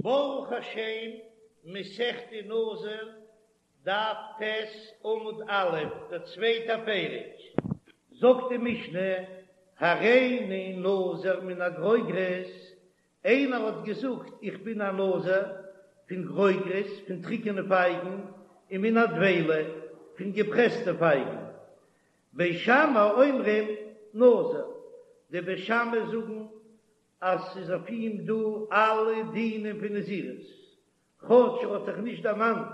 ברוך השם, מסכת נזיר, דף ט' עמוד א', דער צווייטער פרק. זאגט די משנה, הריני נזיר מן הגרוגרות, איינער האט געזאגט איך בין א נזיר פון גרוגרות, פון טריקענע פייגן, און מן הדבילה, פון געפרעסטע פייגן. בית שמאי אומרים נזיר, די בית שמאי זאגן אז ס'איז אויף אים דא אלע דינים פון נזירות, כאטש ער האט זיך נישט דערמאנט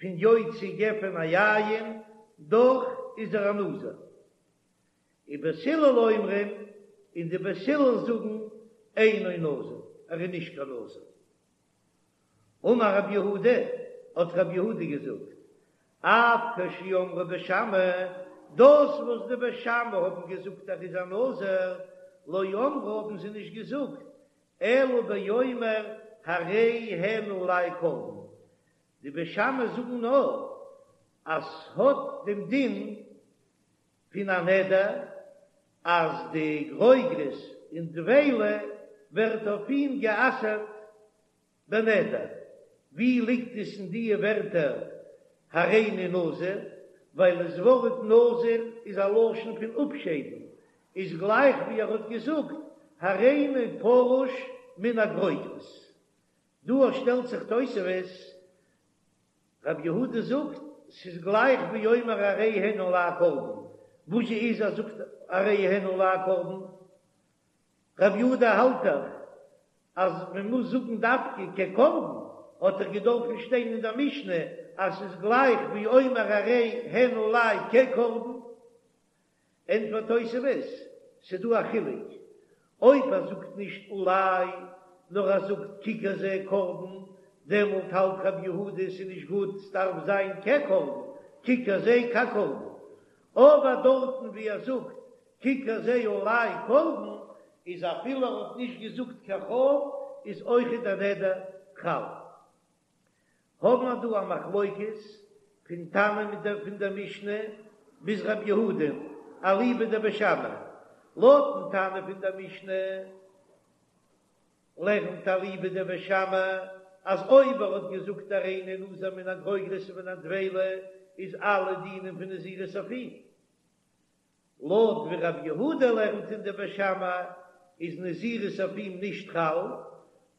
פון יוציא גפן היין, דאך איז ער א נזיר. ובית הלל אומרים, און די בית הלל זאגן, אינו נזיר, ער איז נישט קיין נזיר. אמר רב יהודה, האט רב יהודה געזאגט, אף כשאמרו בית שמאי, דאס וואס די בית שמאי האבן געזאגט ער איז א נזיר, לא אמרו האבן זיי נישט געזאגט, אלא באומר הרי הן עלי קרבן, די בית שמאי זאגן נאר אז ס'האט דעם דין פון א נדר אז די גרוגרות און דבילה ווערט אויף אים גע'אסר'ט בנדר. ווי ליגט עס אין דיע ווערטער הריני נזיר? ווייל דאס ווארט נזיר איז א לשון פון אפשיידן, איז גלייך ווי ער האט געזאגט הריני פרוש מן הגרוגרות. דא שטעלט זיך תוספות רב יהודה זאגט, ס'איז גלייך ווי אומר הרי הן עלי קרבן, וואס זשע איז ער זאגט הרי הן עלי קרבן? רב יהודה האלט דאך אז מען מוז זאגן דווקא כקרבן, האט דאך געדארפן שטיין אין דער משנה אז ס'איז גלייך ווי אומר הרי הן עלי כקרבן. ענטפערט תוספות, ס'דא א חילוק, אויב ער זאגט נישט עלי, נאר ער זאגט ככר זה קרבן, דעמאלט האלט רב יהודה ס'איז נישט גוט, ס'דארף זיין כקרבן, ככר זה כקרבן. אבער דארטן ווי ער זאגט ככר זה עלי קרבן, איז אפילו ער האט נישט געזאגט קיין כ"ף, איז אויכעט דער נדר חל. האבן מיר דא א מחלוקת פון תנא מיט דער פון דער משנה ביז רב יהודה אליבא דבית שמאי, לויטן תנא פון דער משנה לערנט אליבא דבית שמאי אז אויב ער האט געזאגט הריני נזיר מן הגרוגרות ומן הדבילה איז אלע דינים פון נזירות אויף אים. לויט ווי רב יהודה לערנט אין די בית שמאי איז נזירות אויף אים נישט חל,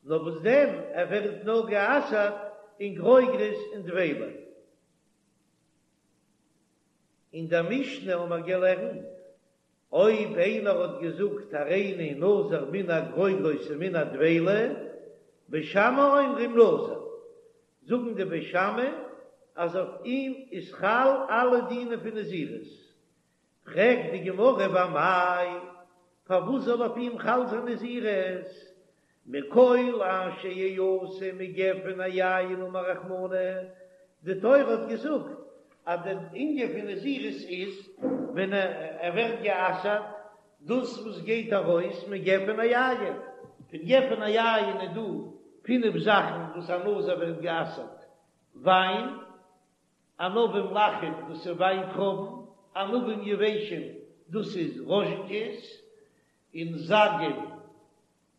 נאר וואס דען ער ווערט נאר גע'אסר'ט אין גרוגרות און דבילה. אין דער משנה האבן מיר געלערנט, אויב איינער האט געזאגט הריני נזיר מן הגרוגרות ומן הדבילה, בית שמאי אומרים נזיר, זאגן די בית שמאי אז אויף אים איז חל אלע דינים פון נזירות, פרעגט די גמרא ואמאי, פארוואס זאל אויף אים חל זיין נזירות? מכל אשר יעשה מגפן היין אמר רחמנא, די תורה האט געזאגט אז דער ענין פון נזירות איז ווען ער ווערט גע'אסר'ט דאס וואס גייט ארויס מגפן היין, פון גפן היין איז דא פינף זאכן וואס א נזיר ווערט גע'אסר'ט, וויין, ענבים לחים דאס איז וויינטרויבן, ענבים יבשים דאס איז ראזשינקעס, און זגים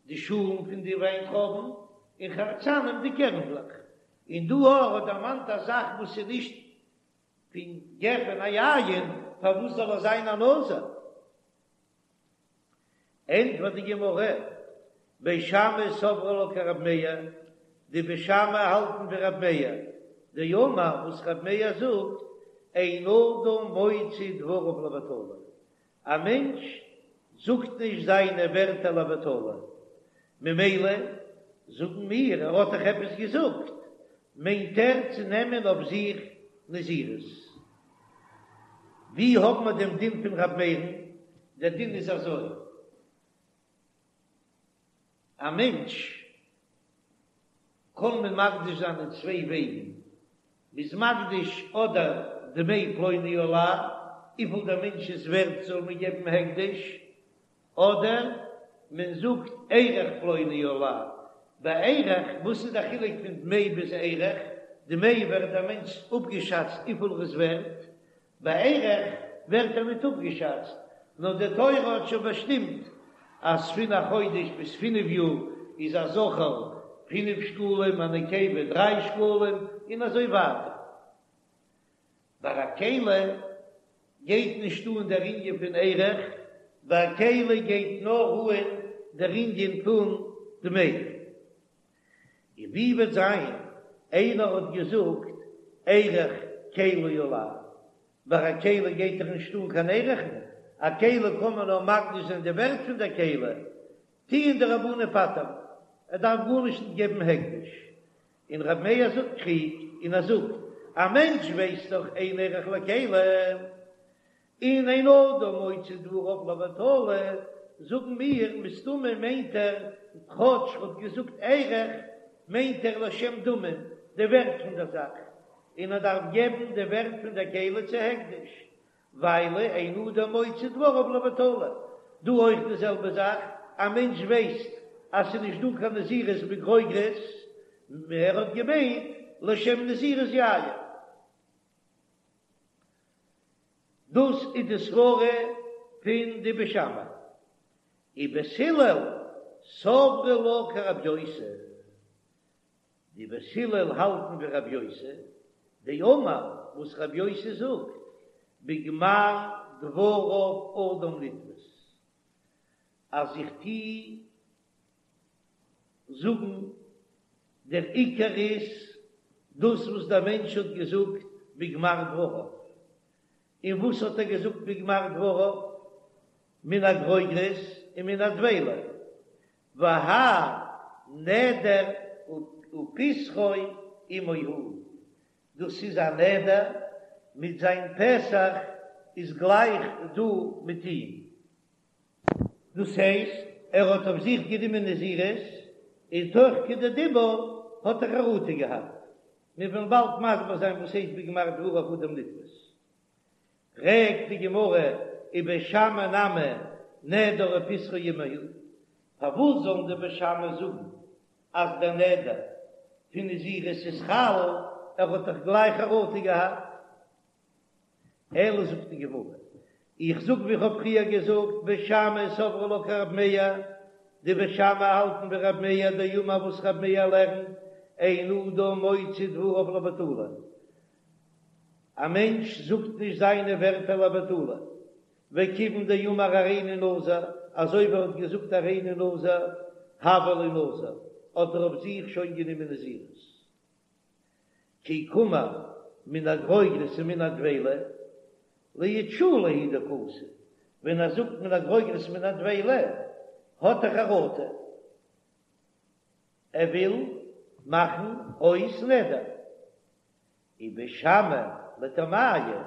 די שאלן פון די וויינטרויבן, און חרצנים די קערנדלעך. און דא ער האט דערמאנט א זאך וואס איז נישט פון גפן היין, פארוואס זאל ער זיין א נזיר? ענטפערט די גמרא, בית שמאי סברי לה כרב מאיר, די בית שמאי האלטן ווי רב מאיר, דאמר וואס רב מאיר זאגט, אין אדם מוציא דבריו לבטלה, א מענטש זאגט נישט זיינע ווערטער לבטלה, ממילא זאגן מיר ער האט דאך עפעס געזאגט, מיינט ער צו נעמען אויף זיך נזירות. ווי האבן מיר דעם דין פון ר' מאיר'ן? דער דין איז אזוי, א מענטש קען מען מקדיש זיין אין צוויי וועגן, מ'איז מקדיש אדער דמי פלוני עלי, וויפיל דער מענטש איז ווערט זאל מען געבן הקדש, אדער מען זאגט ערך פלוני עלי, ביי ערך, וואס איז די חילוק פון דמי ביז ערך? דמי ווערט דער מענטש אפגעשאצט וויפיל ער איז ווערט, ביי ערך ווערט ער ניט אפגעשאצט, נאר די תורה האט שוין באשטימט אז פון א חודש ביז פינף יאר איז א זכר. פינף שקלים, א נקבה דריי שקלים, און אזוי ווייטער. ביי א כלי גייט נישט אן דער ענין פון ערך, ביי א כלי גייט נאר אן דער ענין פון דמי. און ווי וועט זיין איינער האט געזאגט ערך כלי עלי, ביי א כלי גייט דאך נישט אן קיין ערכין, א כלי קען מען נאר מקדיש זיין די ווערט פון דער כלי, טוען די רבנן פטר'ן, ער דארף גארנישט נישט געבן הקדש, און רבי מאיר זאגט קריגט און ער זאגט, א מענטש ווייסט דאך אין ערך לכלי, און אין אדם מוציא דבריו לבטלה, זאגן מיר, מסתמא מיינט ער, כאטש ר'האט געזאגט ערך, מיינט ער לשם דמים, די ווערט פון דער זאך, און ער דארף געבן די ווערט פון דער כלי צו הקדש, ווייל אין אדם מוציא דבריו לבטלה. דא אויך די זעלבע זאך, א מענטש ווייסט אז ס'איז נישט דא קיין נזירות בגרוגרות, ער האט געמיינט לשם נזירות יין. דאס איז די סברה פון די בית שמאי. ובית הלל סברי לה כרבי יוסי. די בית הלל האלטן ווי רבי יוסי, דאמר וואס רבי יוסי זאגט, בגמר דבריו אדם נתפס, אז איך טוה זאגן דער עיקר איז דאס וואס דער מענטש האט געזאגט בגמר דבריו, און וואס האט ער געזאגט בגמר דבריו? מן הגרוגרות און מן הדבילה, והאי נדר ופסחו עמו הוא, דאס איז א נדר מיט זיין פסח איז גלייך דא מיט אים, דאס הייסט ער האט אויף זיך גענומען נזירות און תוך כדי דיבור האט ער חרטה געהאט, מיר וועלן באלד מסביר זיין וואס הייסט בגמר דבריו אדם נתפס. פרעגט די גמרא ובית שמאי נמי נדר ופסחו עמו הוא, פארוואס זאלן די בית שמאי זאגן אז דער נדר פון נזירות איז חל, ער האט דאך גלייך חרטה געהאט? אלא זאגט די גמרא, איך זאג ווי איך האב פריער געזאגט, בית שמאי סברי לה כרב מאיר, די בית שמאי האלטן ווי רב מאיר דאמר וואס רב מאיר לערנט, אין אדם מוציא דבריו לבטלה, א מענטש זאגט נישט זיינע ווערטער לבטלה, וכיוון דאמר הריני נזיר, אזוי ווי ער האט געזאגט הריני נזיר, הוה ליה נזיר, האט ער אויף זיך שוין גענומען נזירות. כי קאמר מן הגרוגרות ומן הדבילה, לאיתשולי הוא דקאתי, ווען ער זאגט מן הגרוגרות מן הדבילה, האט ער חרטה, ער וויל מאכן אויס נדר. ובית שמאי לטעמייהו,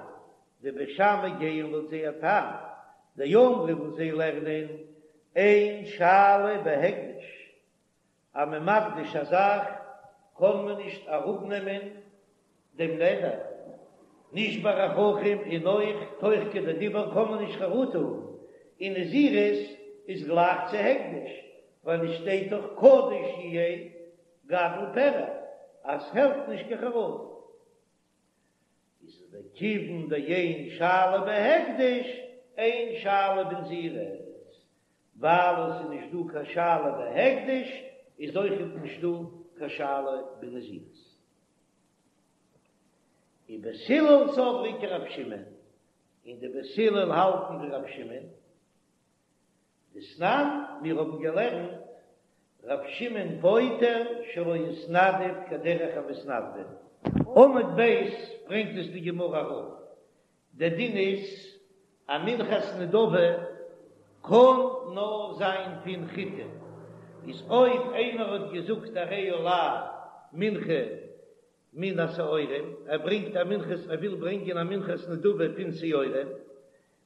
די בית שמאי גייען לויט זייער טעם, דאמרי וואס זיי לערנען אין שאלה בהקדש, אז מען מקדיש א זאך קען מען נישט אראפנעמען דעם נדר, נישט ביי א חכם און אויך תוך כדי דיבור קען מען נישט חרטה האבן, און נזירות איז גלייך צו הקדש, ווייל עס שטייט דאך קדוש יהיה גדל פרע אז ס'העלפט נישט קיין חרטה. איז וכיוון דאין שאלה בהקדש אין שאלה בנזירות, ווייל עס איז נישט דא קיין שאלה בהקדש איז אויכעט נישט דא קיין שאלה בנזירות. ובית הלל סברי כרב שמעון, און די בית הלל האלטן ווי רב שמעון, דתנן, מיר האבן געלערנט ר' שמעון פוטר שלא התנדב כדרך המתנדבים. עמוד ב' ברענגט עס די גמרא אראפ, דער דין איז א מנחת נדבה קען נאר זיין פון חיטה, איז אויב איינער האט געזאגט הרי עלי מנחה מן השעורים, ער ברענגט א מנחת ער וויל ברענגען א מנחת נדבה פון שעורים,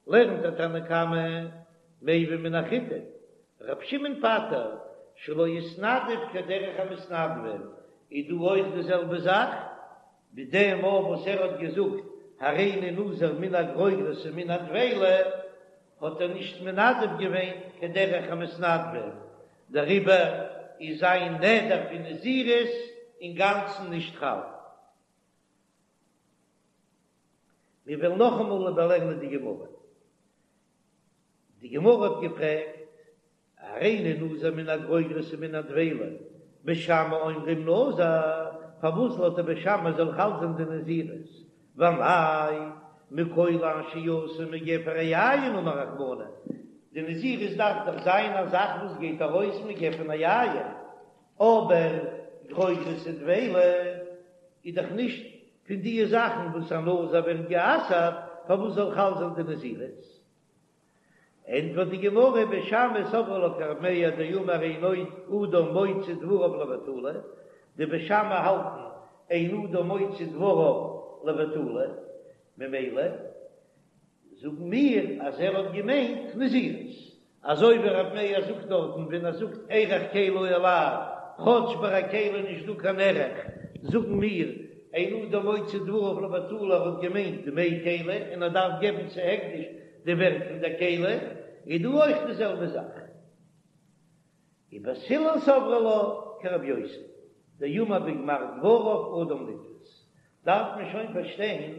לערנט דער תנא קמא מביא מן החיטה, ר' שמעון פטר שלא התנדב כדרך המתנדבים, איז דא אויך די זעלבע זאך, ווי דעם מאל וואס ער האט געזאגט הריני נזיר מן הגרוגרות ומן הדבילה, האט ער נישט מנדב געווען כדרך המתנדבים, דעריבער איז זיין נדר פון נזירות אינגאנצן נישט חל. מיר וועלן נאכאמאל איבערלערנען די גמרא. די גמרא האט געפרעגט, הריני נזיר מן הגרוגרות ומן הדבילה, בית שמאי אומרים נזיר, פארוואס לויט די בית שמאי זאל חל זיין די נזירות? ואמאי מכל אשר יעשו מגפן היין אמר רחמנא, די נזירות דארף דאך זיין א זאך וואס גייט ארויס מגפן היין, אבער גרוגרות ודבילה איז דאך נישט פון די זאכן וואס א נזיר ווערט גע'אסר'ט, פארוואס זאל חל זיין די נזירות? ענטפערט די גמרא, בית שמאי סברי לה כרבי מאיר דאמר אין אדם מוציא דבריו לבטלה, די בית שמאי האלטן אין אדם מוציא דבריו לבטלה, ממילא זאגן מיר אז ער האט געמיינט נזירות, אזוי ווי רבי מאיר זאגט דארטן ווען ער זאגט ערך כלי עלי, כאטש ביי א כלי איז נישט דא קיין ערך, זאגן מיר אין אדם מוציא דבריו לבטלה ער האט געמיינט דמי כלי און ער דארף געבן צו הקדש די ווערט פון דער כלי, איז דא אויך די זעלבע זאך. ובית הלל סברי לה כרבי יוסי דאמר בגמר דבריו אדם נתפס, דארף מען שוין פארשטיין,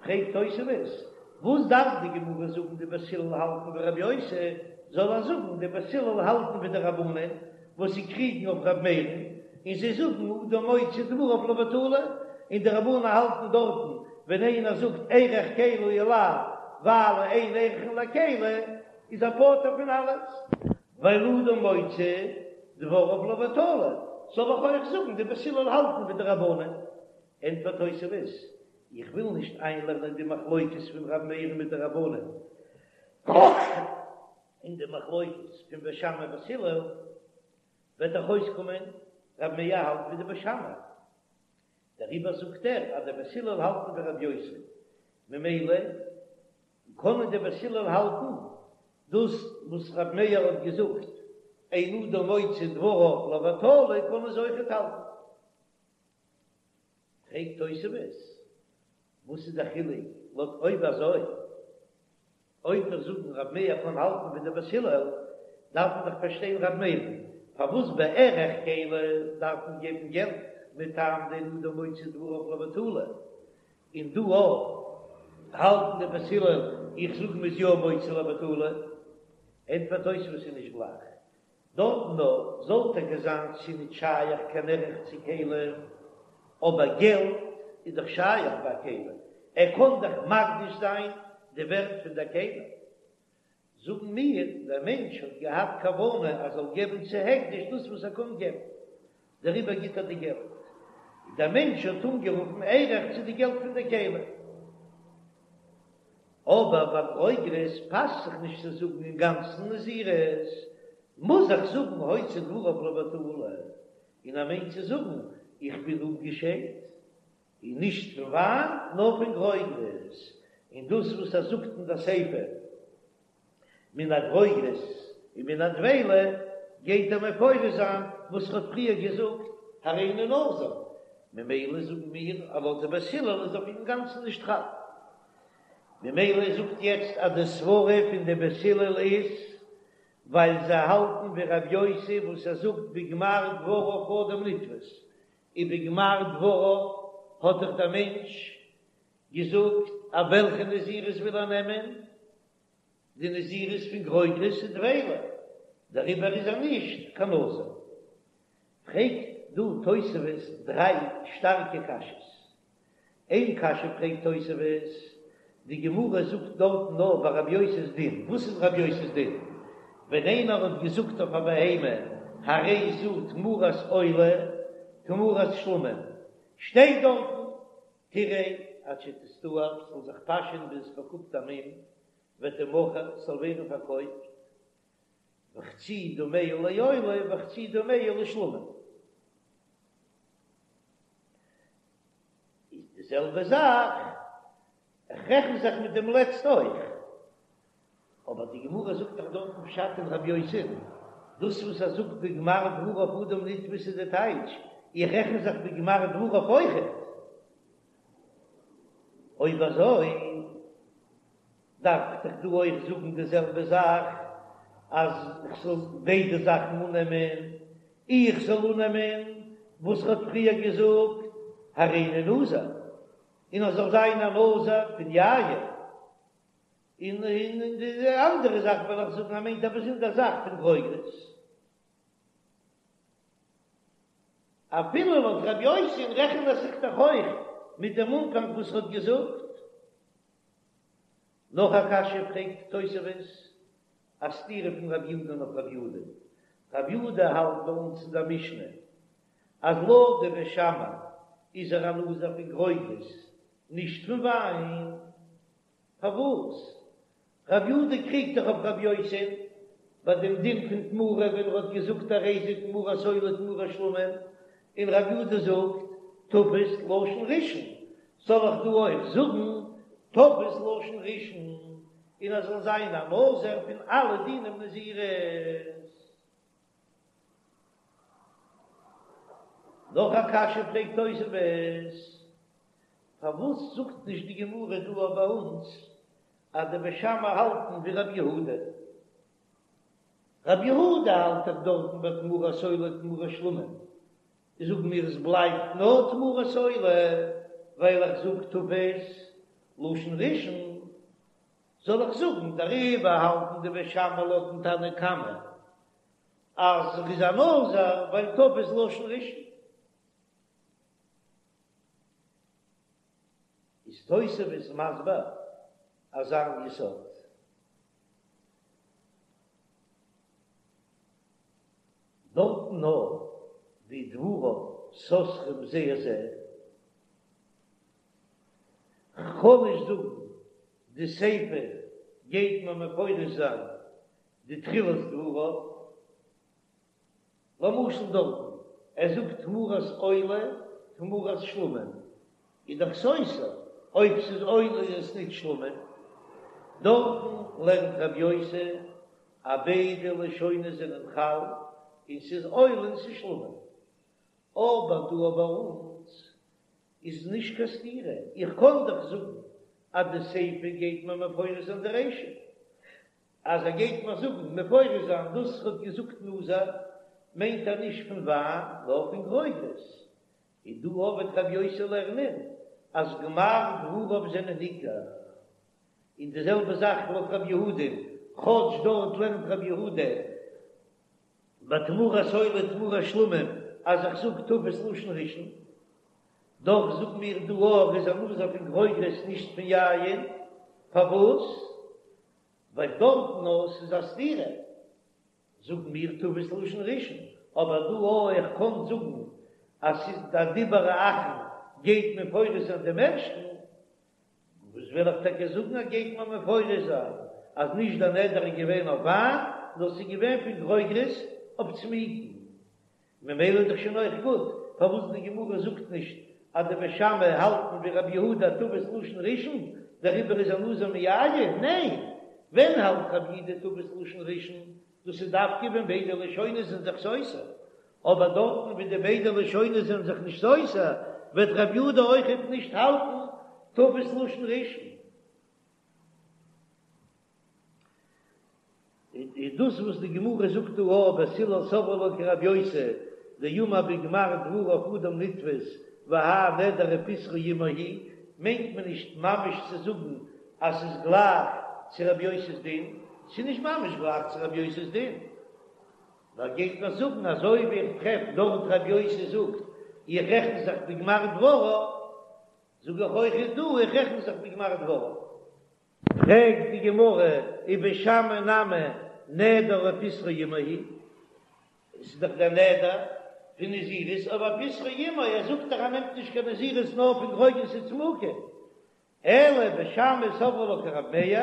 פרעגט תוספות, וואס דארף די גמרא זאגן די בית הלל האלטן ווי רבי יוסי, זאל ער זאגן די בית הלל האלטן ווי די רבנן וואס זיי קריגן אויף רבי מאיר'ן, און זיי זאגן אדם מוציא דבריו לבטלה, און די רבנן האלטן דארטן ווען איינער זאגט ערך כלי עלי ווייל אין ערכין לכלי איז ער פטור פון אלעס. ווייל אדם מוציא דבריו לבטלה, זאל איך אויך זאגן די בית הלל האלטן ווי די רבנן? ענטפערט תוספות, איך וויל נישט איינלערנען די מחלוקת פון ר' מאיר'ן מיט די רבנן, און די מחלוקת פון בית שמאי בית הלל, וועט דאך אויסקומען ר' מאיר האלט ווי די בית שמאי, דעריבער זאגט ער אז די בית הלל האלטן ווי ר' יוסי, ממילא קענען די בית הלל האלטן דאס וואס ר' מאיר האט געזאגט אין אדם מוציא דבריו לבטלה קענען זיי אויכעט האלטן. פרעגט תוספות, וואס איז די חילוק לויט אויב אזוי אויב מיר זאגן ר' מאיר קען האלטן ווי די בית הלל דארף מען דאך פארשטיין ר' מאיר'ן פארוואס ביי ערך כלי דארף מען געבן געלט מטעם דאין אדם מוציא דבריו לבטלה און דא אויך האלטן די בית הלל, איך זאג מ'איז יא מוציא לבטלה, ענטפערט תוספות איז נישט גלייך, דארטן נאר זאל טאקע זיין ס'איז נישט שייך קיין ערך צו כלי, אבער געלט איז דאך שייך ביי א כלי, ער קען דאך מקדיש זיין די ווערט פון דער כלי. זאגן מיר, דער מענטש האט געהאט כוונה ער זאל געבן צו הקדש דאס וואס ער קען געבן, דעריבער גיט ער די געלט. דער מענטש האט אנגערופן ערך צו די געלט פון די כלי. אבער ביי גרוגרות פאסט זיך נישט צו זאגן אינגאנצן נזירות, מוז איך זאגן הוציא דבריו לבטלה, און ער מיינט צו זאגן איך בין אפגעשיידט, און נישט פון וויין נאר פון גרוגרות, און דאס וואס ער זאגט אין דער סיפא מן הגרוגרות און מן הדבילה גייט ער מפרש זיין וואס ער האט פריער געזאגט הריני נזיר, ממילא זאגן מיר אז לויט די בית הלל איז אויף אינגאנצן נישט חל, ממילא זאגט יעצט אז די סברה פון די בית הלל איז ווייל זיי האלטן ווי רב יוסי וואס ער זאגט בגמר דבריו אדם נתפס, און בגמר דבריו האט דאך דער מענטש געזאגט אז וועלכע נזירות וויל ער נעמען, די נזירות פון גרוגרות און דבילה, דעריבער איז ער נישט קיין נזיר. פרעגט דא תוספות דריי שטארקע קשיות. איין קשיא פרעגט תוספות, די גמרא זאגט דארטן נאר ביי רבי יוסי'ס דין, וואס איז רבי יוסי'ס דין? ווען איינער האט געזאגט אויף א בהמה הרי זו תמורת עולה תמורת שלמים, שטייט דארטן תרעה עד שתסתאב, ס'זאל זיך פאשען ביז עס באקומט א מום, ותמכר, ס'זאל ווערן פארקויפט, וחצי דמיה לעולה וחצי דמיה לשלמים. איז די זעלבע זאך, איך רעכן זיך מיט דעם לעצט אויך, אבער די גמרא זאגט דאך דארטן פשט אין רבי יוסי, דאס וואס ער זאגט בגמר דבריו אדם נתפס איז די טייטש, איך רעכן זיך בגמר דבריו אויכעט. אויב אזוי דארף איך דאך דא אויך זאגן די זעלבע זאך, אז איך זאל ביידע זאכן אננעמען, איך זאל אננעמען וואס ער האט פריער געזאגט הריני נזיר, און ער זאל זיין א נזיר פון יין, און און די אנדערע זאך וועל איך זאגן ער מיינט א באזונדער זאך פון גרוגרות. אפילו לויט רבי יוסי'ן רעכנט ער זיך דאך אויך מיט דעם אנפאנג וואס ער האט געזאגט. נאך א קשיא פרעגט תוספות, א סתירה פון רבי יהודה אויף רבי יהודה. רבי יהודה האלט ביי אונז אין דער משנה אז לויט די בית שמאי איז ער א נזיר פון גרוגרות, נישט פון וויין. פארוואס? רבי יהודה קריגט דאך אויף רבי יוסי'ן ביי דעם דין פון תמורה ווען ער האט געזאגט הרי זה תמורת עולה תמורת שלמים, און רבי יהודה זאגט תפס לשון ראשון, זאל איך דא אויך זאגן תפס לשון ראשון און ער זאל זיין א נזיר פון אלע דינים נזירות? נאך א קשיא פרעגט תוספות, פארוואס זאגט נישט די גמרא דא אויף ביי אונז אז די בית שמאי האלטן ווי רבי יהודה? רבי יהודה האלט דאך דארטן ביי תמורת עולה תמורת שלמים, זאגן מיר עס בלייבט נאר תמורת עולה ווייל איך זאג תפס לשון ראשון, זאל איך זאגן דעריבער האלטן די בית שמאי לויטן תנא קמא אז ער איז א נזיר ווייל תפס לשון ראשון? איז תוספות מסביר אזא יסוד. דארטן נאר ווי דבריו סותרים זה את זה, כ'קען נישט זאגן די סיפא גייט מען מפרש זיין די תחילת דבריו, למשל דארטן ער זאגט תמורת עולה תמורת שלמים איז דאך סותר, אויב ס'איז עולה איז עס נישט שלמים, דארטן לערנט רבי יוסי אז ביידע לשונות זענען חל און ס'איז עולה און ס'איז שלמים, אבער דא ביי אונז איז נישט קיין סתירה, איך קען דאך זאגן אז די סיפא גייט מיר מפרש זיין די רישא, אז ער גייט מיר זאגן מפרש זיין דאס ער האט געזאגט נזיר מיינט ער נישט פון וויין נאר פון גרוגרות, און דא וועט רבי יוסי לערנען אז גמר דבריו זענען עיקר, און די זעלבע זאך לויט רבי יהודה, כאטש דארט לערנט רבי יהודה ביי תמורת עולה תמורת שלמים אז איך זאג תפס לשון ראשון, דאך זאגן מיר דא ער איז א נזיר פון גרוגרות נישט פון יין, פארוואס? ווייל דארטן נאר ס'איז א סתירה זאגן מיר תפס לשון ראשון, אבער דא אויך איך קען זאגן אז ס'איז די דיבור האחרון גייט מפרש זיין דעם ערשטן, וואס וויל איך טאקע זאגן אז גייט מען מפרש זיין אז נישט דער נדר איז געווען אויף וויין נאר ס'איז געווען פון גרוגרות אויף צמוקים, ממילא איז דאך שוין אויך גוט פארוואס די גמרא זאגט נישט אז די בית שמאי האלטן ווי רבי יהודה תפס לשון ראשון, דעריבער איז ער נזיר מיין, ניין, ווען האלט רבי יהודה תפס לשון ראשון? דאס איז דווקא ווען ביידע לשונות זענען זיך סותר, אבער דארטן ווי די ביידע לשונות זענען זיך נישט סותר, וועט רבי יהודה אויכעט נישט האלטן תפס לשון ראשון. איז דאס וואס די גמרא זאגט דא א בית הלל סברי לה כרבי יוסי דאמר בגמר דבריו אדם נתפס והאי נדר ופתחו עמו הוא, מיינט מען נישט ממש צו זאגן אז ס'איז גלייך צו רבי יוסי'ס דין, ס'איז נישט ממש גלייך צו רבי יוסי'ס דין, נאר גייט מען זאגן אזוי ווי איך טרעף דארט רבי יוסי זאגט איך רעכן זיך בגמר דבריו, זאג איך אויך איז דא איך רעכן זיך בגמר דבריו. פרעגט די גמרא ובית שמאי נמי נדר ופתחו עמו הוא, עס איז דאך דער נדר פון נזירות אבער ופתחו עמו, ער זאגט דאך ער נעמט נישט קיין נזירות נאר פון גרוגרות וצמוקים, אלא בית שמאי סברי לה כרב מאיר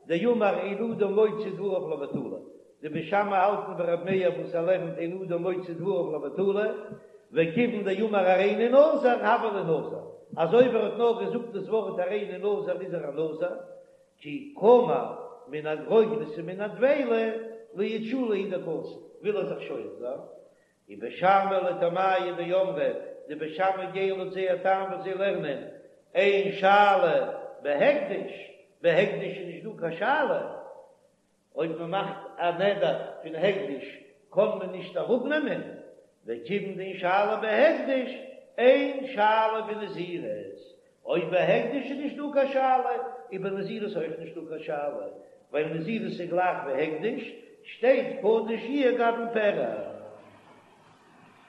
דאמר אין אדם מוציא דבריו לבטלה, די בית שמאי האלטן ווי רב מאיר וואס ער לערנט אין אדם מוציא דבריו לבטלה, וכיוון דאמר הריני נזיר הוה ליה נזיר, אז אויב ער האט נאר געזאגט דאס ווארט הריני נזיר איז ער א נזיר, כי קאמר מן הגרוגרות ומן הדבילה לאיתשולי הוא דקאתי, וויל ער זיך שואל זיין, ובית שמאי לטעמייהו דאמרי, די בית שמאי גייען לויט זייער טעם וואס זיי לערנען, אין שאלה בהקדש, בהקדש איז נישט דא קיין שאלה, אויב מען מאכט א נדר פון הקדש קען מען נישט אראפנעמען, וכיוון דאין שאלה בהקדש אין שאלה בנזירות, אויב ביי הקדש איז נישט דא קיין שאלה, איז ביי נזירות אויך נישט דא קיין שאלה, ווייל נזירות איז גלייך ווי הקדש, שטייט קדוש יהיה גדל פרע.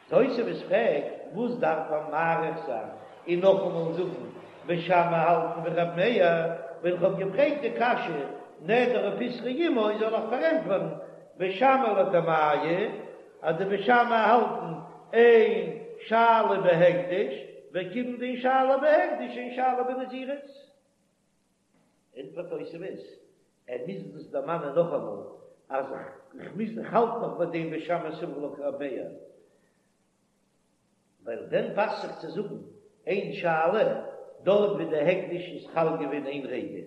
תוספות פרעגט. וואס דארף ער מאריך זיין און נאכאמאל זאגן בית שמאי האלטן ווי רבי מאיר, ווען איך האב געפרעגט די קשיא נדר ופתחו עמו זאל איך פארענטפערן בית שמאי לטעמייהו אז די בית שמאי האלטן אין שאלה בהקדש, וכיוון דאין שאלה בהקדש אין שאלה בנזירות. ענטפערט תוספות, ער מוז דאס דערמאנען נאכאמאל אז איך מוז איך האלט נאך ביי דעם בית שמאי סברי לה כרבי מאיר, ווייל ווען פאסט זיך צו זאגן אין שאלה דארט ווי די הקדש איז חל געווען איין רגע,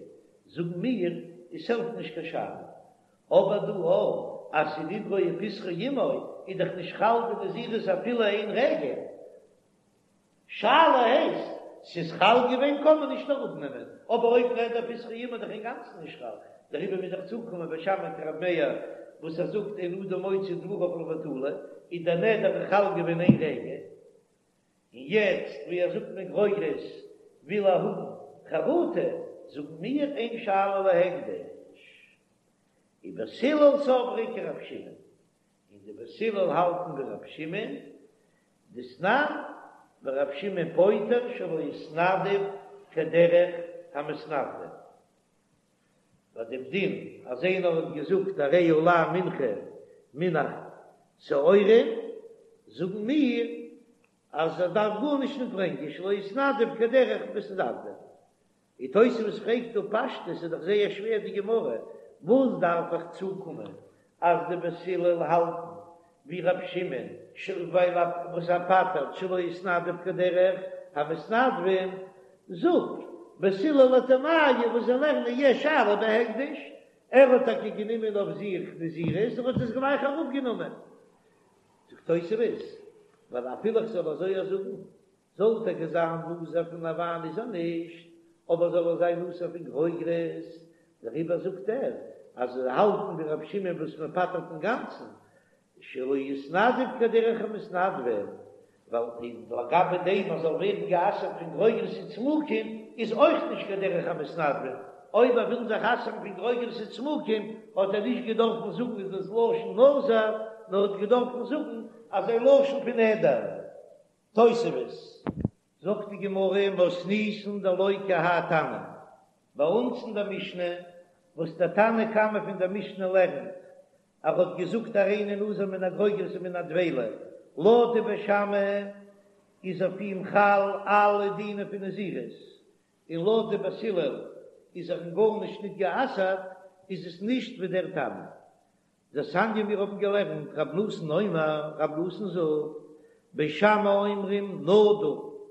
זאגן מיר עס העלפט נישט קיין שאלה, אבער דא אויך אז ס'איז נדרו ופתחו עמו איז דאך נישט חל די נזירות אפילו איין רגע. שאלה הייסט, ס'איז חל געווען קען מען נישט אראפנעמען, אבער אויב נדר ופתחו עמו איז דאך אינגאנצן נישט חל, דעריבער מוז איך צוקומען בית שמאי כרבי מאיר וואס ער זאגט אין אדם מוציא דבריו לבטלה, איז דער נדר חל געווען איין רגע, און יעצט ווי ער זאגט מגרוגרת וויל ער האבן חרטה, זאגן מיר אין שאלה להקדש. ובית הלל סברי כרבי שמעון, און די בית הלל האלטן ווי רבי שמעון, דתנן, ורבי שמעון פוטר שלא התנדב כדרך המתנדבים. ביי דעם דין אז איינער האט געזאגט הרי עלי מנחה מן השעורים, זאגן מיר אז ער דארף גארנישט נישט ברענגען שלא התנדב כדרך מתנדבים. און תוספות פרעגט דא פשטות איז דאך זייער שווער די גמרא, וואס דארף איך צוקומען אז די בית הלל האלטן ווי ר' שמעון ווייל וואס ער פטר'ט שלא התנדב כדרך המתנדבים, זאג בית הלל לטעמייהו וואס זיי לערנען יש שאלה בהקדש, ער האט טאקע גענומען אויף זיך נזירות און האט עס גלייך אראפגענומען, זאגט תוספות ווייל אפילו איך זאל אזוי זאגן זאל טאקע זיין נזיר פון א וויין איז ער נישט, אבער זאל ער זיין אסור פון גרוגרות, דעריבער זאגט ער אז זיי האלטן ווי רבי שמעון וואס מען פטר'ט אינגאנצן, שלא התנדב כדרך המתנדבים, ווייל לגבי דעם אז זאל ווערן גע'אסר'ט פון גרוגרות וצמוקים איז אויך נישט כדרך המתנדבים, אויב ער וויל זיך אסר'ן פון גרוגרות וצמוקים האט ער נישט געדארפן זאגן איז דאס לשון נזיר, נאר האט געדארפן זאגן אזא לשון פון נדר. תוספות, זאגט די גמרא מתניתין דלא כי האי תנא, ביי אונז אין דער משנה, וואס דער תנא קמא פון דער משנה לערנט, ער האט געזאגט הריני נזיר מן הגרוגרת ומן הדבילה, לויט די בית שמאי איז אויף אים חל אלע דינים פון נזירות, און לויט די בית הלל איז ער אין גארנישט ניט גע'אסר'ט, איז עס נישט ווי דער תנא. דתניא מיר האבן געלערנט רב נתן אומר, רב נתן זאגט, בית שמאי אומרים נדור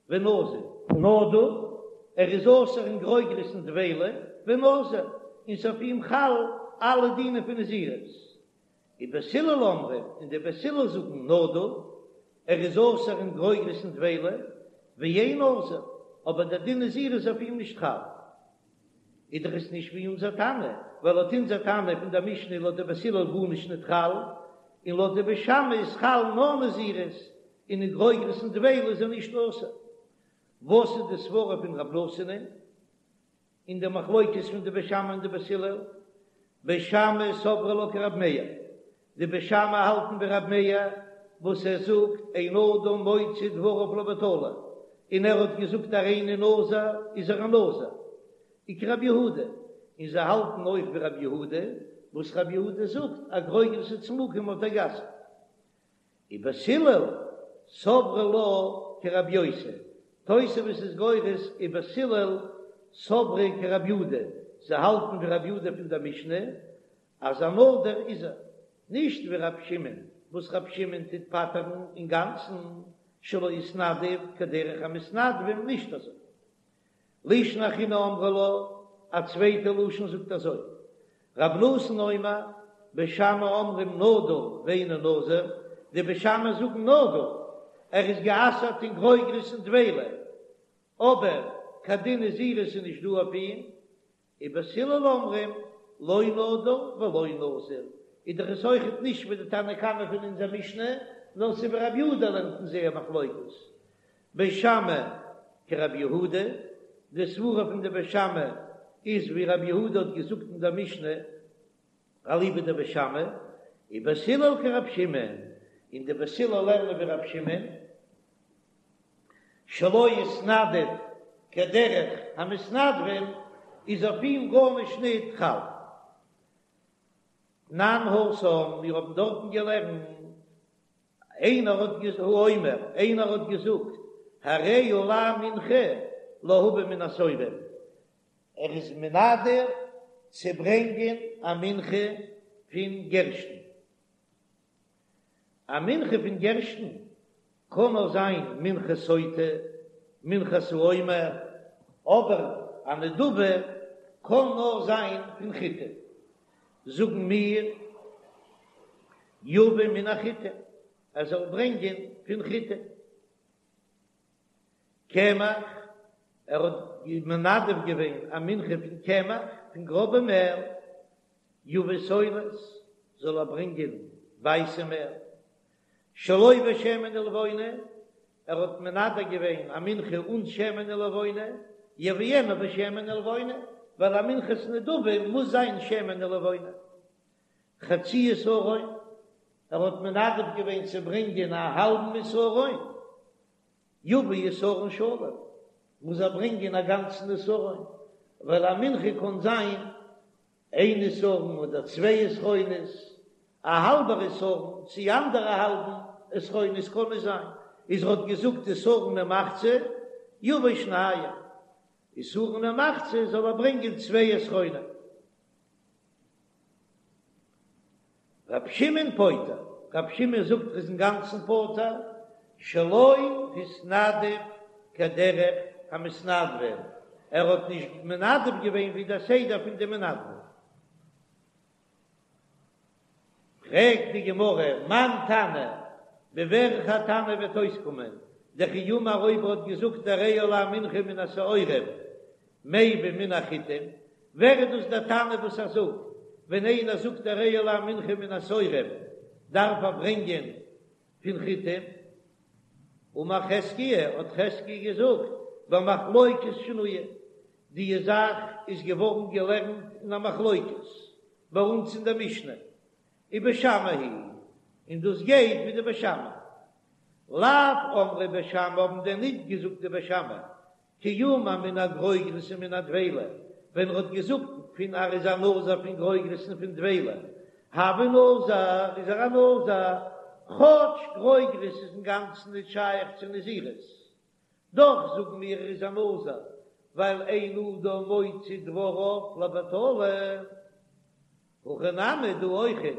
ונזיר. נדור, ער איז אסור אין גרוגרות און דבילה, ונזיר, און ס'אויף אים חל אלע דינים פון נזירות. ובית הלל אומרים, און די בית הלל זאגן נדור, ער איז אסור אין גרוגרות און דבילה, ואין נזיר, אבער דער דין נזירות איז אויף אים נישט חל. איז דאך עס נישט ווי אונזער תנא, ווייל לויט אונזער תנא פון דער משנה איז לויט די בית הלל גארנישט ניט חל, און לויט די בית שמאי איז חל נאר נזירות, און אין גרוגרות און דבילה איז ער נישט אסור. וואס איז די סברא פון רב נתן'ען אין די מחלוקת פון די בית שמאי און די בית הלל? בית שמאי סברי לה כרב מאיר, די בית שמאי האלטן ווי רב מאיר וואס ער זאגט אין אדם מוציא דבריו לבטלה, און ער האט געזאגט הריני נזיר איז ער א נזיר, וכרב יהודה, און זיי האלטן אויך ווי רב יהודה וואס רב יהודה זאגט אז גרוגרות וצמוקים האט ער גע'אסר'ט. ובית הלל סברי לה כרב יוסי, תוספות איז גורס ובית הלל סברי כרב יהודה, זיי האלטן ווי רב יהודה פון דער משנה אז א נדור איז ער, נישט ווי רב שמעון וואס רב שמעון טוט פטר'ן אינגאנצן שלא התנדב כדרך המתנדבים נישט אזוי. לישנא אחרינא אמרי לה, א צווייטע לשון זאגט אזוי, רב נתן אומר, בית שמאי אומרים נדור ואינו נזיר, די בית שמאי זאגן נדור, ער איז גע'אסר'ט אין גרוגרות און דבילה, אבער קיין דין נזירות איז נישט דא אויף אים, ובית הלל אומרים לא נדור ולא נזיר, איז דאך עס אויכעט נישט ווי די תנא קמא פון אונזער משנה, נאר ס'איז ווי רב יהודה לערנט אין זייער מחלוקת. בית שמאי כרב יהודה, די סברה פון די בית שמאי איז ווי רב יהודה האט געזאגט אין דער משנה, אליבא דבית שמאי, ובית הלל כרב שמעון, און די בית הלל לערנען ווי רב שמעון. שלא התנדב כדרך המתנדבים, איז אויף אים גארנישט ניט חל. תנן התם, מיר האבן דארטן געלערנט, איינער האט געז האומר, איינער האט געזאגט, הרי עלי מנחה להביא מן השעורים, ער איז מנדר צו ברענגען א מנחה פון גערשטן. א מנחה פון גערשטן קען נאר זיין מנחת סוטה, מנחת העומר, אבער א נדבה קען נאר זיין פון חיטה. זאגן מיר, יביא מן החיטה, ער זאל ברענגען פון חיטה. קמח, ער האט מנדב געווען א מנחה פון קמח, פון גראבע מעל, יביא סולת, זאל ער ברענגען ווייסע מעל, שלא בשמן ולבונה, ער האט מנדב געווען א מנחה אן שמן ולבונה, יביאנה בשמן ולבונה, ווייל א מנחת נדבה מוז זיין שמן ולבונה. חצי עשרון, ער האט מנדב געווען צו ברענגען א האלבן עשרון, יביא עשרון שלם, מוז ער ברענגען א גאנצן עשרון, ווייל א מנחה קען זיין איין עשרון אדער צוויי עשרונות, א האלבער עשרון צי אנדערע האלבן עשרונות קען נישט זיין, איז ער האט געזאגט עשרון ומחצה, יביא שניים, עשרון ומחצה זאל ער ברענגען צוויי עשרונים. רב שמעון פוטר, רב שמעון זאגט ער איז אינגאנצן פטור, שלא התנדב כדרך המתנדבים, ער האט נישט מנדב געווען ווי דער סדר פון די מנדבים. פרעגט די גמרא, מאן תנא, ווי וועלכער תנא וועט אויסקומען, דכי אמר אויב ער האט געזאגט הרי עלי מנחה מן השעורים, מביא מן החיטים, ווער איז דאס דער תנא וואס ער זאגט ווען איינער זאגט הרי עלי מנחה מן השעורים דארף ער ברענגען פון חיטים? אמר חזקיה, האט חזקיה געזאגט, במחלוקת שנויה, די זאך איז געווארן געלערנט אין א מחלוקת ביי אונז אין דער משנה, ובית שמאי היא, און דאס גייט ווי די בית שמאי. לאו אמרי בית שמאי האבן דען ניט געזאגט די בית שמאי כי אמר מן הגרוגרות ומן הדבילה, ווען ער האט געזאגט פון ער איז א נזיר פון גרוגרות און פון דבילה, הוי נזיר איז ער א נזיר, כאטש גרוגרות איז אינגאנצן נישט שייך צו נזירות, דאך זאגן מיר ער איז א נזיר, ווייל אין אדם מוציא דבריו לבטלה. הכא נמי דא אויכעט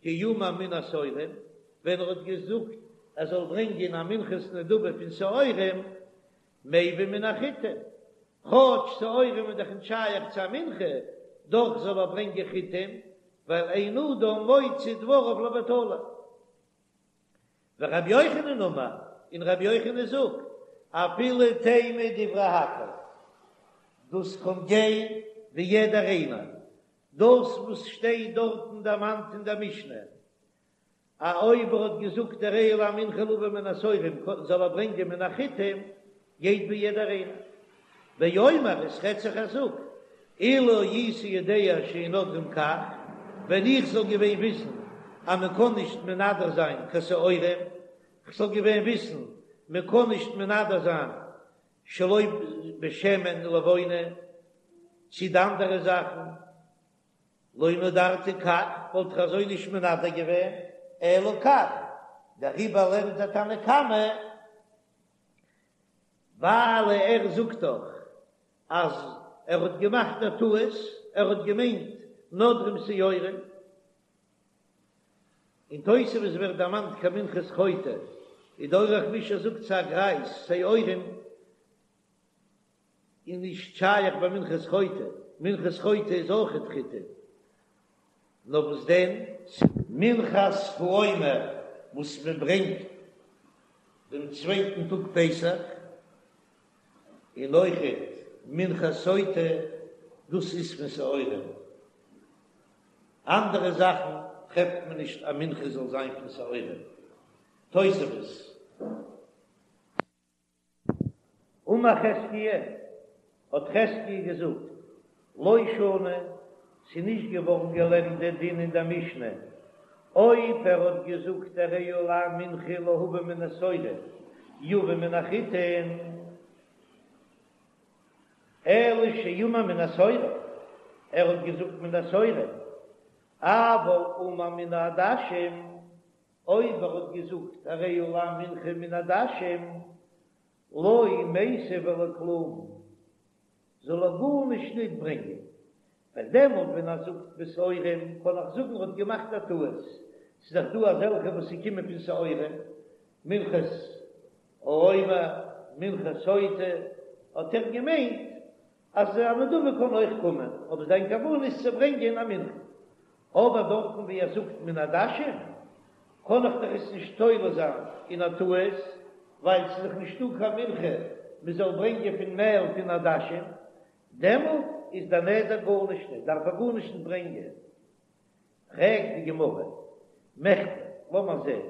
כי אמר מן השעורים, ווען ער האט געזאגט ער זאל ברענגען א מנחת נדבה פון שעורים, מביא מן החיטים, כאטש שעורים איז דאך נישט שייך צו א מנחה, דאך זאל ער ברענגען חיטים, ווייל אין אדם מוציא דבריו לבטלה. ורבי יוחנן אמר, און רבי יוחנן זאגט, אפילו תימא דברי הכל, דאס קען גיין ווי יעדער איינער, דאס וואס שטייט דארטן דערמאנט אין דער משנה, א אויב ער האט געזאגט הרי עלי מנחה להביא מן השעורים זאל ער ברענגען מן החיטים, גייט ווי יעדער איינער. באומר עס רעדט זיך ער זאגט, אילו הייתי יודע שאין נודרים כך, ווען איך זאל געווען וויסן אז מען קען נישט מנדר זיין קיין שעורים, כ'זאל געווען וויסן מען קען נישט מנדר זיין שלא בשמן ולבונה, צי די אנדערע זאכן, לא נדרתי כך, וואלט איך אזוי נישט מנדר געווען, אלא כך, דעריבער לערנט דער תנא קמא, ווייל ער זאגט דאך אז ער האט געמאכט א טעות, ער האט געמיינט נודרים שעורים, אין תוספות ווערט דערמאנט קיין מנחת חוטא, און דער אורח מישור זאגט ס'איז א גרייז שעורים איז נישט שייך ביי מנחת חוטא, מנחת חוטא איז אויכעט חיטה, נאר וואס דען? מנחת העומר וואס מען ברענגט דעם צווייטן טאג פסח, און אויכעט מנחת סוטה, דאס איז פון שעורים. אנדערע זאכן טרעפט מען נישט א מנחה זאל זיין פון שעורים. תוספות. אמר חזקיה, האט חזקיה געזאגט, לא שנו, ס'איז נישט געווארן געלערנט דער דין אין דער משנה, אויב ער האט געזאגט הרי עלי מנחה להביא מן השעורים. יביא מן החיטין, אלא שאמר מן השעורים, ער האט געזאגט מן השעורים, אבל אמר מן העדשים, אויב ער האט געזאגט הרי עלי מנחה מן העדשים, לא מיתב ולא כלום, זאל ער גארנישט ניט ברענגען, ווייל דעמאלט ווען ער זאגט בשעורים קען איך זאגן ער האט געמאכט א טעות, ס'איז דאך דא אזעלכע וואס ס'קומען פון שעורים, מנחת העומר, מנחת סוטה, האט ער געמיינט אז א נדבה קען אויך קומען, אבער זיין כוונה איז צו ברענגען א מנחה. אבער דארטן ווי ער זאגט מן העדשים, קען איך דאך עס נישט תולה זיין אין א טעות, ווייל ס'איז דאך נישטא קיין מנחה מ'זאל ברענגען פון מעל פון עדשים, דעמאלט איז דער נדר גארנישט נישט, דארף ער גארנישט נישט ברענגען. פרעגט די גמרא, מכדי, לאמיר זען,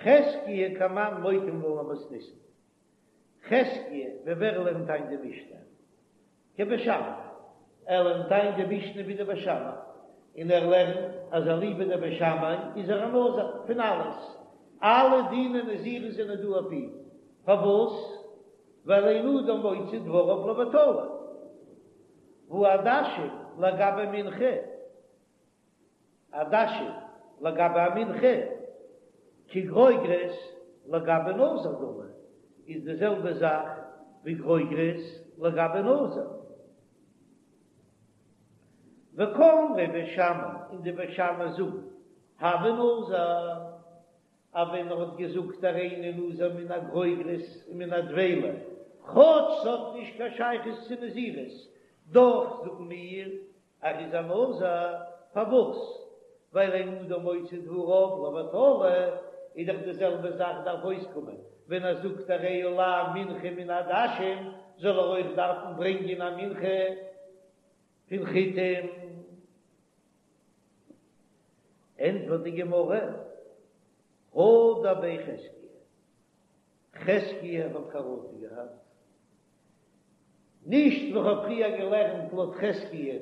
חזקיה כמאן מוקים לן למתניתין, חזקיה, ווי ווער לערנט איין די משנה? כבית שמאי, ער לערנט איין די משנה ווי די בית שמאי, און ער לערנט אז אליבא דבית שמאי איז ער א נזיר פון אלעס, אלע דיני נזירות זענען דא אויף אים, פארוואס? ווייל אין אדם מוציא דבריו לבטלה, והא עדשים לגבי מנחה. עדשים לגבי א מנחה, כגרוגרת לגבי נזיר דמי, איז די זעלבע זאך ווי גרוגרת לגבי נזיר. וקאמרי בית שמאי, און די בית שמאי זאגן, הוי נזיר, אז ווען ער האט געזאגט הריני נזיר מן הגרוגרת און מן הדבילה, כאטש ס'האט נישט קיין שייכות צו נזירות, דאך זאגן מיר ער איז א נזיר, פארוואס? ווייל אין אדם מוציא דבריו לבטלה, איז דאך די זעלבע זאך דארף אויסקומען ווען ער זאגט הרי עלי מנחה מן העדשים, זאל ער אויך דארפן ברענגען א מנחה פון חיטים. ענטפערט די גמרא, הדר ביה חזקיה, חזקיה האט חרטה געהאט, נישט ווי כ'האב פריער געלערנט לויט חזקיה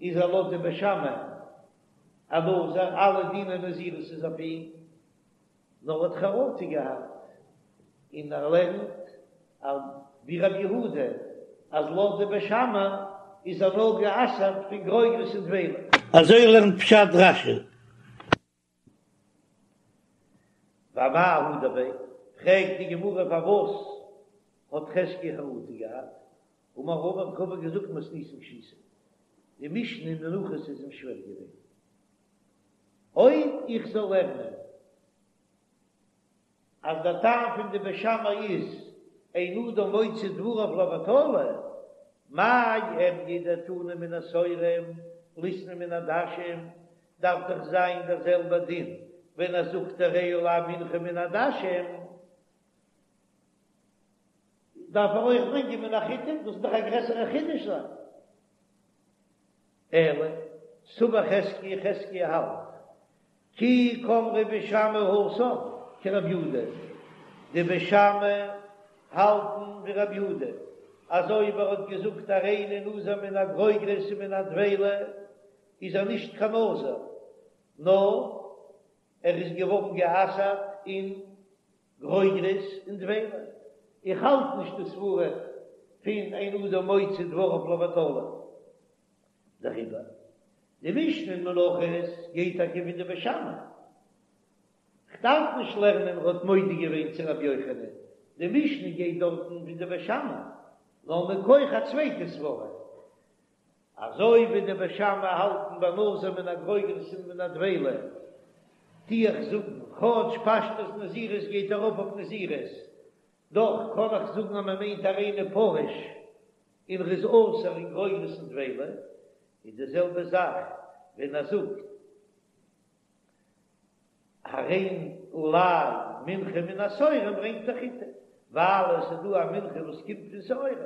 איז ער לויט די בית שמאי א נזיר, אלע דיני נזירות איז אויף אים, נאר האט חרטה געהאט און ער לערנט ווי רבי יהודה אז לויט די בית שמאי איז ער נאר גע'אסר'ט פון גרוגרות און דבילה. אזוי לערנט פשט רש"י. ואמאי הדר ביה, פרעגט די גמרא פארוואס האט חזקיה חרטה געהאט, אמר רבא האט רבא געזאגט מתניתין קשיתיה, די משנה אין מנחות איז אים שווער געווען, אויב איך זאל לערנען אז דער טעם פון די בית שמאי איז אין אדם מוציא דבריו לבטלה, מאי איריא דתנא מן השעורים ליתני מן העדשים, דארף דאך זיין דער זעלבער דין ווען ער זאגט הרי עלי מנחה מן העדשים, דארף ער אויך ברענגען מן החיטים, דאס איז דאך א גרעסערע חידוש זיין. אלא סבר חזקיה, חזקיה האלט כי קאמרי בית שמאי התם כרבי יהודה, די בית שמאי האלטן ווי רבי יהודה, אז אויב ער האט געזאגט הריני נזיר מן הגרוגרות ומן הדבילה איז ער נישט קיין נזיר, נאר ער איז געווארן גע'אסר'ט אין גרוגרות און דבילה. איך האלט נישט די סברה פון אין אדם מוציא דבריו לבטלה. דעריבער די משנה אין מנחות גייט טאקע ווי די בית שמאי. כ'דארף נישט לערנען ער האט מודה געווען צו רבי יוחנן, די משנה גייט דארטן ווי די בית שמאי, נאר מכח א צווייטע סברה. אזוי ווי די בית שמאי האלטן ביי נזיר מן הגרוגרות און מן הדבילה, טו איך זאגן, כאטש פשטות נזירות גייט ארויף אויף נזירות, דאך קען איך זאגן אז מען מיינט הריני פרוש און ר'איז אסור אין גרוגרות און דבילה, איז די זעלבע זאך ווען ער זאגט הרי עלי מנחה מן השעורים ברענגט ער חיטה, ווייל עס איז דא א מנחה וואס קומט פון שעורים.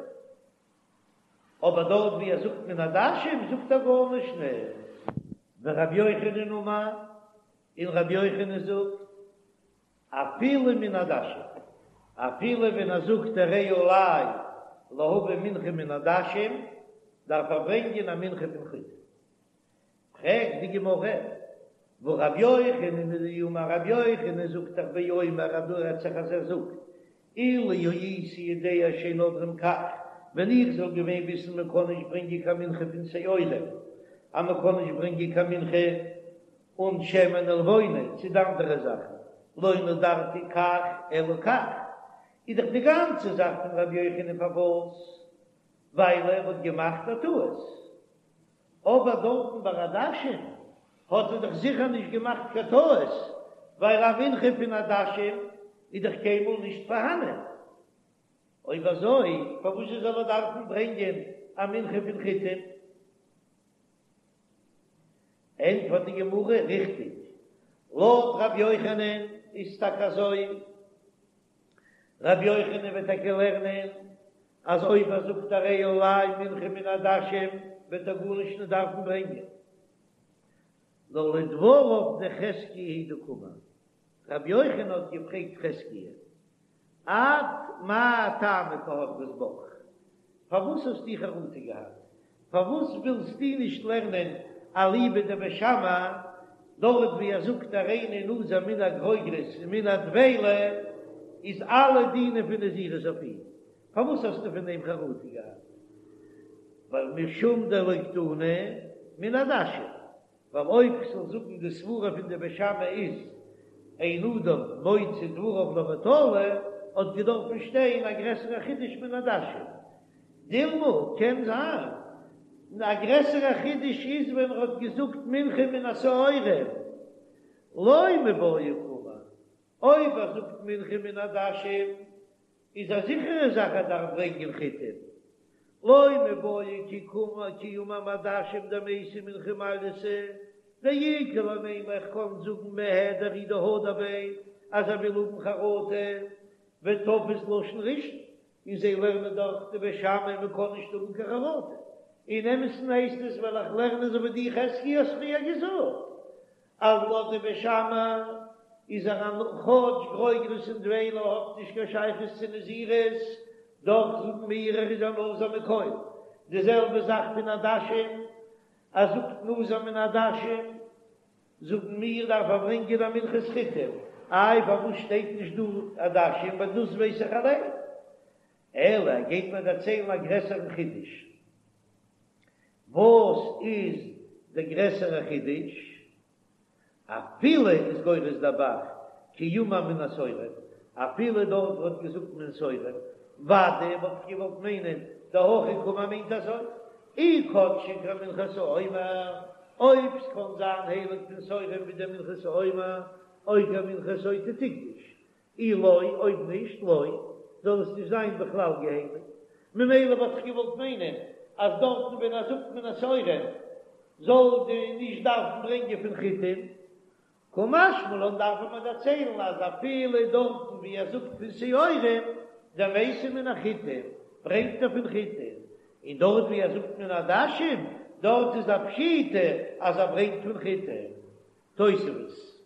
אבער דארט ווי ער זאגט מן העדשים זאגט ער גארנישט נישט. ורבי יוחנן אמר, און רבי יוחנן זאגט, אפילו מן העדשים, אפילו ווען ער זאגט הרי עלי להביא מנחה מן העדשים, דארף ער ברענגען א מנחה פון חיטה. פרעגט די גמרא. והא רבי יוחנן הוא דאמר רבי יוחנן זאגט דאך באומר אז דא רעדט זיך אז ער זאגט אילו הייתי יודע שאין נודרים כך, ווען איך זאל געווען וויסן מען קען נישט ברענגען קיין מנחה פון שעורים, אז מען קען נישט ברענגען קיין מנחה אן שמן ולבונה צו די אנדערע זאכן, לא נדרתי כך אלא כך, איז דאך די גאנצע זאך פון רבי יוחנן פארוואס? ווייל ער האט געמאכט א טעות. אבער דארטן ביי עדשים האט ער דאך זיכער נישט געמאכט קיין טעות, ווייל א מנחה פון עדשים איז דאך קיינמאל נישט פארהאנען. אויב אזוי פארוואס זאל ער דארפן ברענגען א מנחה פון חיטים? ענטפערט די גמרא, ריכטיג, לויט ר' יוחנן איז טאקע אזוי, ר' יוחנן וועט טאקע לערנען אז אויב ער זאגט הרי עלי מנחה מן העדשים וועט ער גארנישט נישט דארפן ברענגען, נאר לדבריו דחזקיה הוא דקאמר, ר' יוחנן האט געפרעגט חזקיה, את מאי טעמא קא הדרת בך, פארוואס האסטו חרטה געהאט? פארוואס ווילסטו נישט לערנען אליבא דבית שמאי, דארט ווי ער זאגט הריני נזיר מן הגרוגרות און מן הדבילה איז אלע דינים פון נזירות אויף אים, פארוואס האסטו פון דעם חרטה געהאט? ווייל משום דלא קתני מן העדשים, ווייל אויב כ'זאל זאגן די סברה פון די בית שמאי איז אין אדם מוציא דבריו לבטלה, האט געדארפן שטיין א גרעסערע חידוש מן העדשים. דילמא, קען זיין א גרעסערע חידוש איז ווען ער האט געזאגט מנחה מן השעורים, לא מיבעיא קאמר, אויב ער זאגט מנחה מן העדשים איז א זיכערע זאך ער דארף ברענגען חיטים, לא מיבעיא כי קאמר כי אמר מעדשים דמייתי מנחה מעלייתא, דאיכא למימר איך קען זאגן מהדר הוא דהדר ביה אז ער וויל האבן חרטה ותפס לשון ראשון, און זיי לערנען דאך די בית שמאי מען קען נישט האבן קיין חרטה, אין אמת'ן הייסט עס וועל איך לערנען אזוי ווי דו חזקיה האסט פריער געזאגט אז לויט די בית שמאי איז ער א כאטש גרוגרות און דבילה האט נישט קיין שייכות צו נזירות, דאך זאגן מיר ער איז א נזיר מכל, די זעלבע זאך פון עדשים, ער זאגט נזיר מן העדשים, זאגן מיר דארף ער ברענגען א מנחת חיטים, איי פארוואס שטייט נישט דא עדשים ווייל דאס ווייס איך אליין, אלא ער גייט מיר דערציילן א גרעסערן חידוש. וואס איז די גרעסערע חידוש? אפילו איז גורס דער ב"ח כי אמר מן השעורים, אפילו דארט וואו ער האט געזאגט מן השעורים, ודאי וואלט איך געוואלט מיינען דהכי קאמר מיינט אזוי, אי קדשה כמנחת העומר, אויב ס'קען זיין הייליג פון שעורים ווי די מנחת העומר, או כמנחת סוטה תקדוש, אי לא, אויב נישט, לא, זאל עס נישט זיין בכלל געהייליגט. ממילא וואלט איך געוואלט מיינען אז דארטן ווען ער זאגט מן השעורים זאל די נישט דארפן ברענגען פון חיטים, קא משמע לן דארף מען דערציילן אז אפילו דארטן ווי ער זאגט פון שעורים דמייתי מן החיטים ברענגט ער פון חיטים, און דארט ווי ער זאגט מן העדשים דארט איז א פשיטא אז ער ברענגט פון חיטים. תוספות.